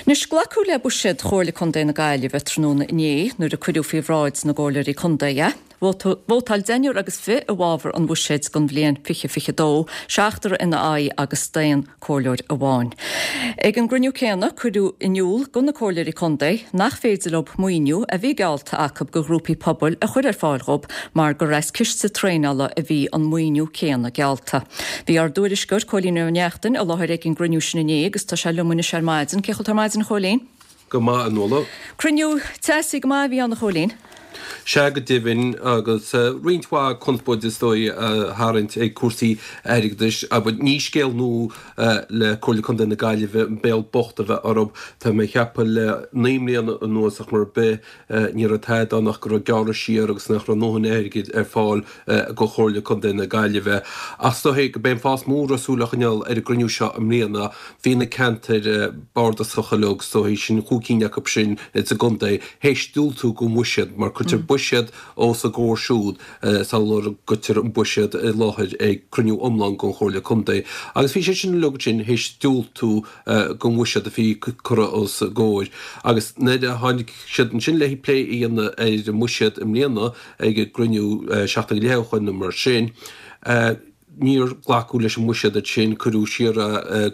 Anois, glacadh le buiséad Chomhairle Contae na Gaillimhe tráthnóna inné nuair a cuireadh faoi bhráid na gComhairleoirí Contae é. Vótáil deichniúr agus 20 i bhfabhar an bhuiséid don bhliain 2022, seachtar ina aghaidh agus staon comhairleoir amháin. Ag an gcruinniú céanna cuireadh in iúl do na comhairleoirí contae nach féidir leo maoiniú a bhí geallta acu do ghrúpaí pobail a chur ar fáil dhóibh mar gur as ciste traenála a bhí an maoiniú céanna geallta. Bhí ár dtuairisceoir, Cóilín Ó Neachtain, i láthair ag an gcruinniú sin inné agus tá sé liom anois ar maidin. Cén chaoi a bhfuil tú ar maidin, a Chóilín? Go maith, a Nuala. Cruinniú teasaí go maith a bhí ann, a Chóilín. Sea, go deimhin, agus roinnt mhaith conspóide is dóigh á tharraingt ag cúrsaí airgeadais. Abair, ní scéal nua le Comhairle Contae na Gaillimhe an béal bocht a bheith orthu. Tá mé ag ceapadh le 9 mbliana anuas ach mar ar bith, Ní raibh tada ann ach go raibh gearradh siar agus nach raibh a ndóthain airgid ar fáil do Chomhairle Contae na Gaillimhe. Ach is dóichí gurb é an fáth is mó a raibh súil á choinneáil ar an gcruinniú seo i mbliana, bhí na ceantair bardasacha uilig, is dóichí, sin chúig cinn acu sin sa gcontae, théis diúltú don bhuiséad, mar cuirtear buiséad os a gcomhair siúd sular gcuirtear an buiséad i láthair ag cruinniú iomlán den Chomhairle Contae. Agus bhí siad sin uilig ansin théis diúltú don bhuiséad a bhí curtha os a gcomhair. Agus nuair a tháinig siad ansin le plé a dhéanamh ar an mbuiséad i mbliana ag an gcruinniú seachtain go leith ó shoin nó mar sin, níor glacadh leis an mbuiséad ansin, cuireadh siar é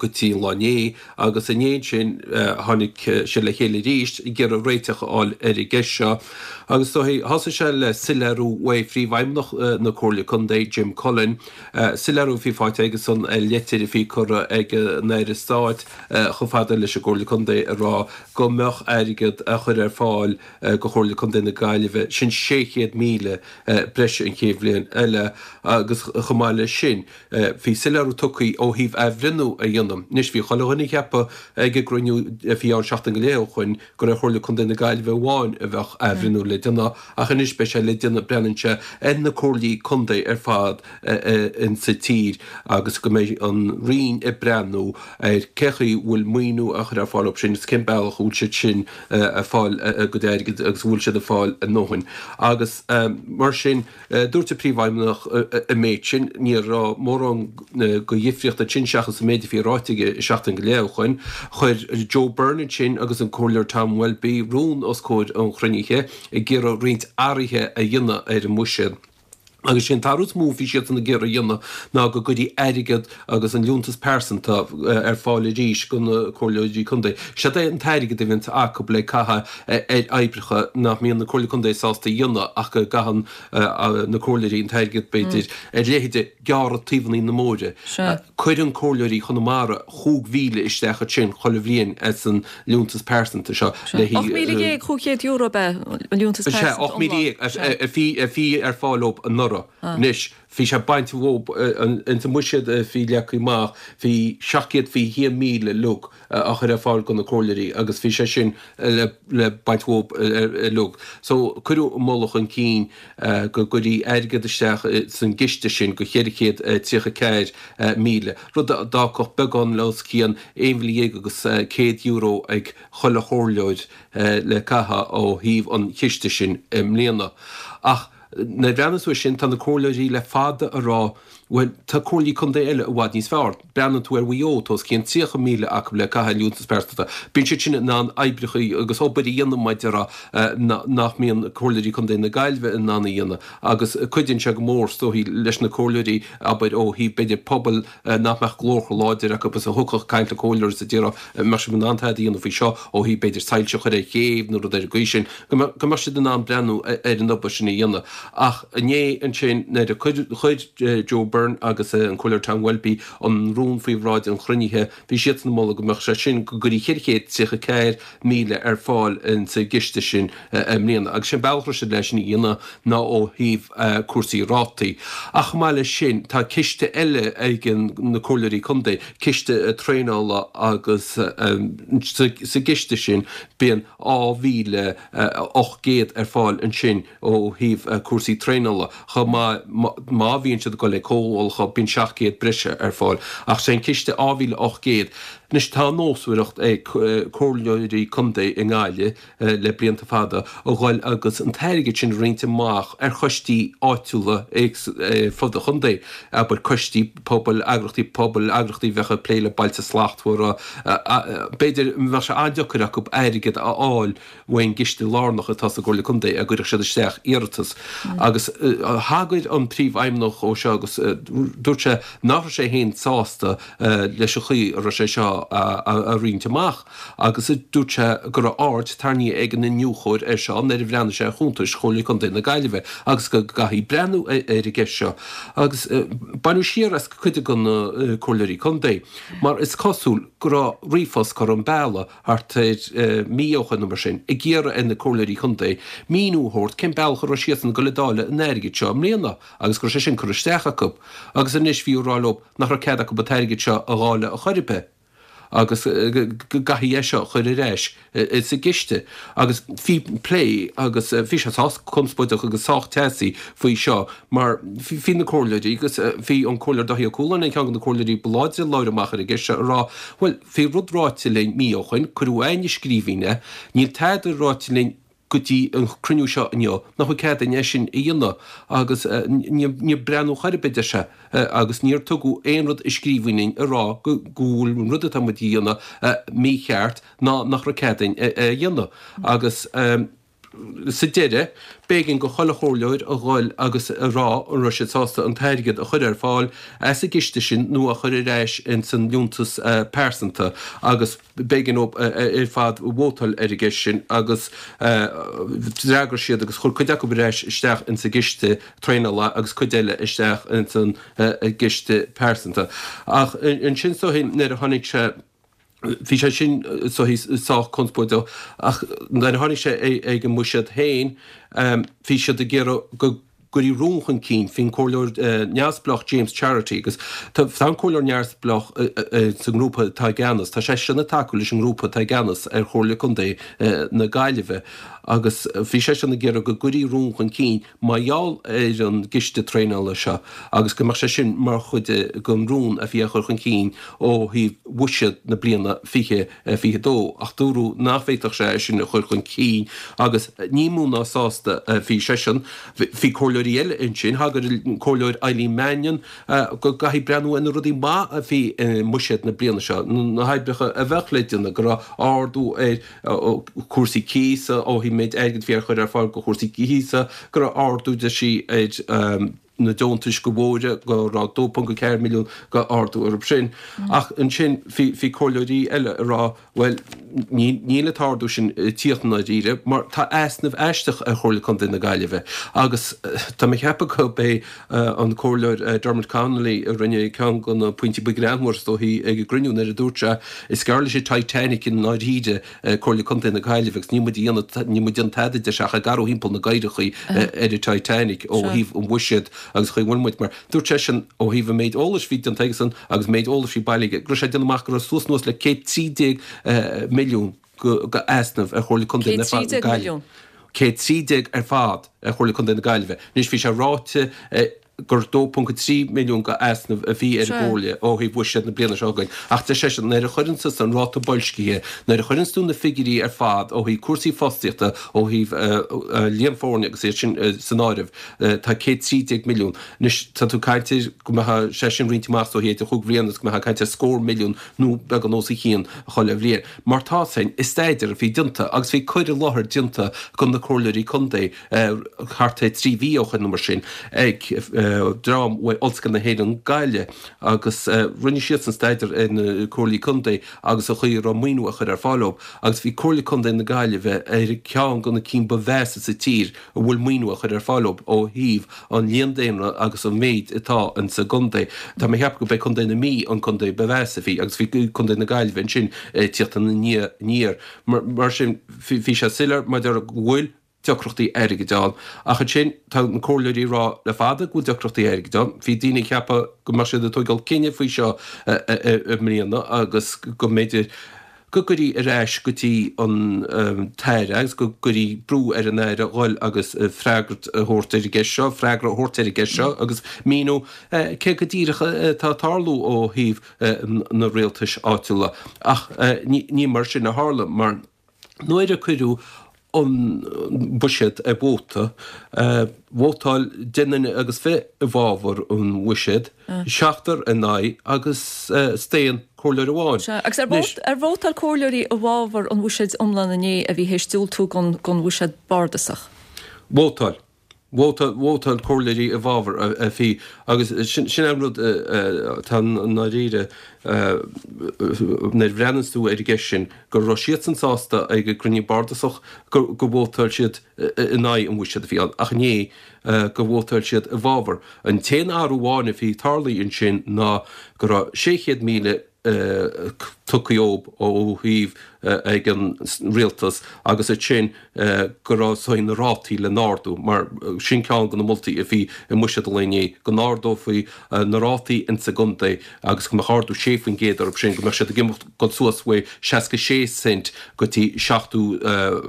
go dtí an lá inné agus inné ansin tháinig siad le chéile arís ag iarraidh réiteach a fháil ar an gceist seo. Agus is dóichí, thosaigh sé le soiléiriú uaidh Phríomhfheidhmeannach na Comhairle Contae, Jim Cullen, Soiléiriú a bhí faighte aigesan ar leitir a bhí curtha ag an Aire Stáit chomh fada leis an gComhairle Contae ag rá go mbeadh airgead á chur ar fáil do Chomhairle Contae na Gaillimhe, sin 600,000 breise an chéad bhliain eile agus chomh maith leis sin bhí soiléiriú tugtha ó thaobh athbhreithniú a dhéanamh. Anois bhí chuile dhuine ag ceapadh ag an gcruinniú a bhí ann seachtain go leith ó shoin gur ar Chomhairle Contae na Gaillimhe amháin a bheadh athbhreithniú le déanamh ach anois beidh sé le déanamh, breathnaíonn sé, ar na comhairlí contae ar fad insa tír agus go mbeidh an Roinn ag breathnú ar cé chaoi a bhfuil maoiniú á chur ar fáil dóibh sin agus cén bealach a bhfuil siad sin ag fáil a gcuid airgid agus an bhfuil siad ag fáil a ndóthain. Agus mar sin. Dúirt an Príomhfheidhmeannach an méid sin. Ní raibh mórán de dhifríocht ansin seachas an méid a bhí ráite aige seachtain go leith ó shoin. Chuir Joe Byrne ansin agus an Comhairleoir Tom Welby rún os comhair an chruinnithe ag iarraidh roinnt athruithe a dhéanamh ar an mbuiséad. Agus sé an t-athrú is mó a bhí siadsan ag iarraidh a dhéanamh ná go gcuirfí airgead agus an liúntas pearsanta ar fáil arís do na comhairleoirí contae. Siod é an t-airgead a bhíonns acu le caitheamh ar oibreacha nach mbíonn na comhairlí contae sásta a dhéanamh ach go gcaitheann na comhairleoirí an t-airgead, b'fhéidir, ar leithéide gearradh taobhanna na mbóithre. Cuireann comhairleoirí Chonamara 5,000 isteach ansin chuile bhliain as an liúntas pearsanta seo le €18,500 ab ea an liúntas pearsanta iomlán? Sea, 18,000 a bhí ar fáil dóibh anuraidh. Anois, bhí sé bainte dhóibh, ins an mbuiséad a bhí leagtha amach, bhí 721,000 uilig á chur ar fáil do na comhairleoirí agus bhí sé sin le baint dhóibh uilig. So, cuireadh an moladh chun cinn go gcuirfí airgead isteach san gciste sin go 434,000, rud a d'fhágfadh beagán le os cionn €11,100 ag chuile chomhairleoir le caitheamh ó thaobh an chiste sin i mbliana. Ach nuair a bhreathnaíonn tú air sin, tá na comhairleoirí le fada ag rá, bhuel, tá comhairlí contae eile i bhfad níos fearr. Breathnaíonn tú ar Mhaigh Eo, tá os cionn 30,000 acu le caitheamh liúntas pearsanta. Bíonn siad sin in ann oibreacha agus obair a dhéanamh mar a déarfá nach mbíonn comhairleoirí contae na Gaillimhe in ann a dhéanamh agus cuidíonn sé go mór, is dóichí, leis na comhairleoirí, abair, ó thaobh, b'fhéidir, pobail nach mbeadh glór chomh láidir acu is a thiocfadh ag caint le comhairleoir is a déarfadh an mbeadh sibh in ann tada a dhéanamh faoi seo ó thaobh b'fhéidir soilse a chur ar chéibh nó rud ar an gcaoi sin, go mbeadh siad in ann breathnú ar an obair sin a dhéanamh. Ach inné ansin nuair a chuir Joe Byrne agus an Comhairleoir Tom Welby an rún faoi bhráid an chruinnithe, bhí siadsan ag moladh go mbeadh sé sin, go gcuirfí 434,000 ar fáil insa gciste sin i mbliana. Agus sé an bealach a raibh siad leis sin a dhéanamh ná ó thaobh cúrsaí rátaí. Ach chomh maith leis sin, tá ciste eile ag na comhairleoirí contae, ciste traenála agus sa gciste sin bíonn 2,800 ar fáil ansin ó thaobh cúrsaí traenála. Chomh maith, má bhíonn siad ag dul ag comhdhálacha, bíonn 700 breise ar fáil. Ach sé an ciste 2,800. Anois tá nósmhaireacht ag comhairleoirí contae i nGaillimh le blianta fada a dhul agus an t-airgead sin a roinnt amach ar choistí áitiúla ar fud an chontae, abair coistí pobail, eagrachtaí pobail, eagrachtaí a bheadh ag plé le Bailte Slachtmhara. B'fhéidir bheadh sé an-deacair acu airgead a fháil ón gciste lárnach atá sa gComhairle Contae a gcuirfeadh siad isteach iarratas. Agus thagair an Príomhfheidhmeannach dó seo agus dúirt sé nach raibh sé féin sásta leis an chaoi a raibh sé seo á roinnt amach agus dúirt sé go raibh aird tarraingthe ag an iniúchóir air seo nuair a bhreathnaigh sé ar chuntais Chomhairle Contae na Gaillimhe agus go gcaithfí breathnú ar an gceist seo. Agus baineadh siar as cuid de na comhairleoirí contae mar is cosúil go raibh ríomhphost curtha chun bealaigh thart ar mí ó shoin nó mar sin, ag iarraidh ar na comhairleoirí contae míniú a thabhairt cén bealach a raibh siadsan ag dul ag dáileadh an airgid seo i mbliana agus go raibh sé sin curtha isteach acu agus anois bhí á rá leo nach raibh cead acu an t-airgead seo a dháileadh a chor ar bith agus go gcaithfí é seo a chur ar ais sa gciste. Agus bhí plé agus bhí sé sách conspóideach agus sách teasaí faoi seo mar bhí na comhairleoirí agus bhí an Comhairleoir Dáithí Ó Cualáin ar cheann de na comhairleoirí ba láidre a labhair amach ar an gceist seo ag rá bhuel bhí rud ráite linn mí ó shoin, cuireadh againn i scríbhinn é, níl tada ráite linn go dtí an cruinniú seo inniu nach bhfuil cead againn é sin a dhéanamh agus níor breathnú chor ar bith, deir sé, agus níor tugadh aon rud i scríbhinn linn a rá go bhfuil an rud atá muid a dhéanamh mícheart ná nach raibh cead againn é a dhéanamh agus. Sa deireadh, b'éigean go chuile chomhairleoir a dhul agus a rá an raibh siad sásta an t-airgead a chur ar fáil as an gciste sin nó a chur ar ais ins an liúntas pearsanta agus b'éigean dóibh ar fad vótáil ar an gceist sin agus d'fhreagair siad agus chuir cuid acu ar ais isteach ins an gciste traenála agus cuid eile isteach ins an gciste pearsanta. Ach ansin is dóichí nuair a tháinig sé. Bhí sé sin sách conspóideach ach nuair a tháinig sé ag an mbuiséad féin bhí siad ag iarraidh go gcuirfí rún chun cinn faoin comhairleoir neamhspleách James Charity agus tá an comhairleoir neamhspleách sa ngrúpa atá i gceannas, tá seisean ag tacú leis an ngrúpa atá i gceannas ar Chomhairle Contae na Gaillimhe agus bhí seisean ag iarraidh go gcuirfí rún chun cinn mar gheall ar an gciste traenála seo agus go mbeadh sé sin mar chuid den rún a bhí á chur chun cinn ó thaobh bhuiséad na bliana 2022 ach dúradh nach bhféadfadh sé é sin a chur chun cinn agus ní mó ná sásta a bhí seisean. Bhí comhairleoirí eile ansin, thagair an Comhairleoir Eileen Mannion go gcaithfí breathnú ar na rudaí maith a bhí i mbuiséad na bliana seo, na hoibreacha a bheadh le déanamh, go raibh ardú ar chúrsaí cíosa, ó thaobh méid airgid a bhí á chur ar fáil do chúrsaí cíosa, go raibh ardú, deir sí, ar na deontais do bhóithre, go raibh 2.4 milliún go ardú orthu sin. Ach ansin bhí comhairleoirí eile ag rá, bhuel, níl an t-ardú sin ag tíocht i ndáiríre mar tá easnamh aisteach ar Chomhairle Contae na Gaillimhe agus tá mé ag ceapadh gurb é an Comhairleoir Dermot Connolly a rinne ceann de na pointí ba ghreannmhaire is dóichí ag an gcruinniú nuair a dúirt sé Is gearr leis an Titanic i ndáiríre, Comhairle Contae na Gaillimhe agus níl muid ag déanamh, níl muid ag déanamh tada, deir sé, ach ag athrú thimpeall na gcaorachaí ar an Titanic ó thaobh an bhuiséid agus chaoi a bhfuil muid mar dúirt seisean ó thaobh an méid eolais a bhí déanta aigesan agus an méid eolais a bhí bailithe aige go raibh sé ag déanamh amach go raibh suas anuas le 113 milliún go easnamh ar Chomhairle Contae na 113 Gaillimhe. milliún? 113 ar fad ar Chomhairle Contae na Gaillimhe. Anois bhí sé ráite gur 2.3 milliún go easnamh a bhí ar an gComhairle ó thaobh bhuiséad na bliana seo chugainn ach deir seisean nuair a chuireann tusa an ráta boilscithe, nuair a chuireanns tú na figiúirí ar fad ó thaobh cúrsaí fostaíochta, ó thaobh líon foirne agus iad sin san áireamh, tá 113 milliún. Anois tá tú ag caint ar go mbeadh sé sin roinnte amach is dóichí idir chúig bhliana agus go mbeifeá ag caint ar scór milliún nó beagán os a chionn chuile bhliain. Mar tá féin i staidéar a bhí déanta agus bhí cur i láthair déanta do na comhairleoirí contae, thart ar 3 mhí ó shoin nó mar sin ag dream ó Ollscoil na hÉireann Gaillimh agus rinne siadsan staidéar ar na comhairlí contae agus an chaoi a raibh maoiniú á chur ar fáil dóibh agus bhí Comhairle Contae na Gaillimhe ar cheann de na cinn ba mheasa sa tír a bhfuil maoiniú á chur ar fáil dóibh ó thaobh an líon daonra agus an méid atá insa gcontae. Tá mé ag ceapadh gurb é Contae na Mí an contae ba mheasa a bhí agus bhí Contae na Gaillimhe ansin ag tíocht ina ndiaidh aniar. Mar sin bhí sé soiléir maidir go bhfuil deacrachtaí airgid ann. Ach ansin, tá na comhairleoirí ag rá le fada go bhfuil deacrachtaí airgid ann. Bhí daoine ag ceapadh go mbeadh siad ag tóigeáil cinneadh faoi seo i mbliana agus go mb'fhéidir. Go gcuirí ar ais go dtí an tAire agus go gcuirí brú ar an Aire dhul agus freagairt a thabhairt ar an gceist seo, freagra a thabhairt ar an gceist seo agus míniú cé go díreach atá ag tarlú ó thaobh na rialtais áitiúla. Ach ní mar sin a tharla mar nuair a cuireadh an buiséad ar vóta, vótáil 10 nduine agus 20 i bhfabhar an bhuiséid, seachtar in aghaidh agus staon comhairleoir amháin. Sea, agus ar vótáil comhairleoirí i bhfabhar an bhuiséid iomlán inné a bhí théis diúltú don bhuiséad bardasach? Vótáil. Vótáil comhairleoirí i bhfabhar a bhí agus sin é an rud atá i ndáiríre nuair a bhreathnaíonns tú ar an gceist sin, go raibh siadsan sásta ag an gcruinniú bardasach go vótáil siad in aghaidh an bhuiséid a bhí ann ach inné go vótáil siad i bhfabhar. An t-aon athrú amháin a bhí tarlaithe ansin ná go raibh 600,000 tugtha dhóibh ó thaobh ag an rialtas agus ansin go raibh saghas na rátaí le n-ardú mar sin ceann de na moltaí a bhí i mbuiséad an lae inné, go n-ardófaí na rátaí insa gcontae agus go mbeadh ardú 6% orthu sin, go mbeadh siad ag imeacht dul suas uaidh 66 cent go dtí 70,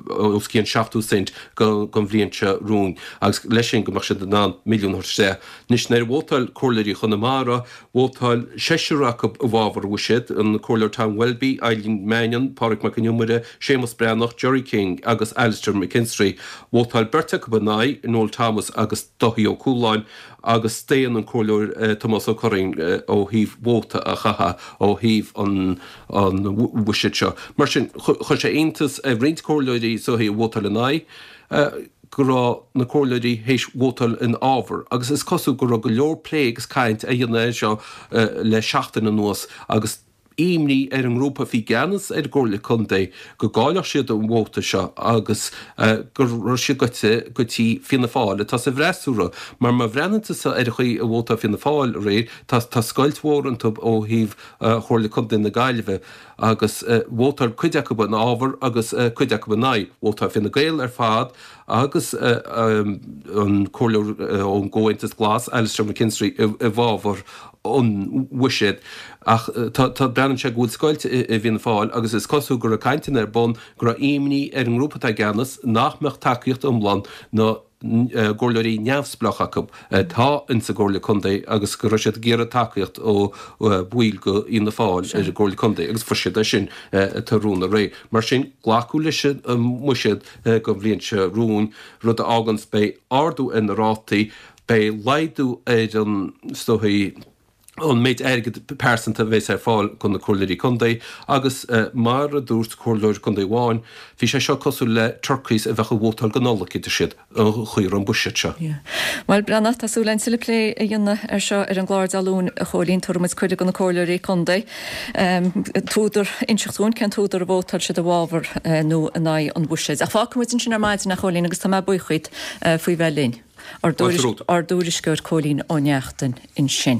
os cionn 70 cent don bhliain seo romhainn agus leis sin go mbeadh siad in ann milliún a thabhairt isteach. Anois nuair a vótáil comhairleoirí Chonamara, Vótáil seisear acu i bhfabhar an bhuiséid, an Comhairleoir Tom Welby, Eileen Mannion, Pádraig Mac Con Iomaire, Séamus Breathnach, Gerry King agus Alastair McKinstry. Vótáil beirt acu in aghaidh, Noel Thomas agus Dáithí Ó Cualáin, agus staon an Comhairleoir Tomás Ó Curraoin ó thaobh vóta a chaitheamh ó thaobh an bhuiséid seo. Mar sin, chuir sé iontas ar roinnt comhairleoirí is dóichí a vótáil in aghaidh. go raibh na comhairleoirí théis vótáil ina fhábhar agus is cosúil go raibh go leor plé agus caint á dhéanamh air seo le seachtain anuas agus imní ar an ngrúpa a bhí i gceannas ar an gComhairle Contae go gcaillfeadh siad an vóta seo agus go raibh siad goite go dtí Fianna Fáil atá sa bhfreasúra mar má bhreathnaíonn tusa ar an chaoi a vótáil Fianna Fáil aréir tá tá scoilt mhór iontu ó thaobh Chomhairle Contae na Gaillimhe. agus vótáil cuid acu ina fhábhar agus cuid acu in aghaidh. Vótáil Fine Gael ar fad agus an comhairleoir ón gComhaontas Glas, Alastair McKinstry, i bhfabhar an bhuiséid. Ach tá, breathnaíonn sé go bhfuil scoilt i bhFianna Fáil agus is cosúil go raibh cainteanna ar bun go raibh imní ar an ngrúpa atá i gceannas nach mbeadh tacaíocht iomlán na gcomhairleoirí neamhspleách acu atá insa gComhairle Contae agus go raibh siad ag iarraidh tacaíocht ó bhaill de Fhianna Fáil ar an gComhairle Contae agus fuair siad é sin tráthnóna aréir. Mar sin, glacadh leis an mbuiséad don bhliain seo romhainn, rud a fháganns beidh ardú ar na rátaí, beidh laghdú ar an, is dóichí, an méid airgid pearsanta a bheas ar fáil do na comhairleoirí contae agus mar a dúirt comhairleoir contae amháin, bhí sé seo cosúil le turkeys a bheadh ag vótáil don Nollaig, a deir siad, an chaoi a raibh an buiséad seo. Bhuel, Breathnach, tá súil againn tuilleadh plé a dhéanamh ar seo ar an gclár Dé Luain, a Chóilín. Tabharfaidh muid cuireadh do na comhairleoirí contae an t-údar, inseacht dúinn cén t-údar a vótáil siad i bhfabhar nó in aghaidh an bhuiséid. Ach fágfaidh muid ansin ar maidin, a Chóilín, agus tá mé buíoch díot faoi bheith linn. Ár dtuairisceoir Cóilín Ó Neachtain ansin.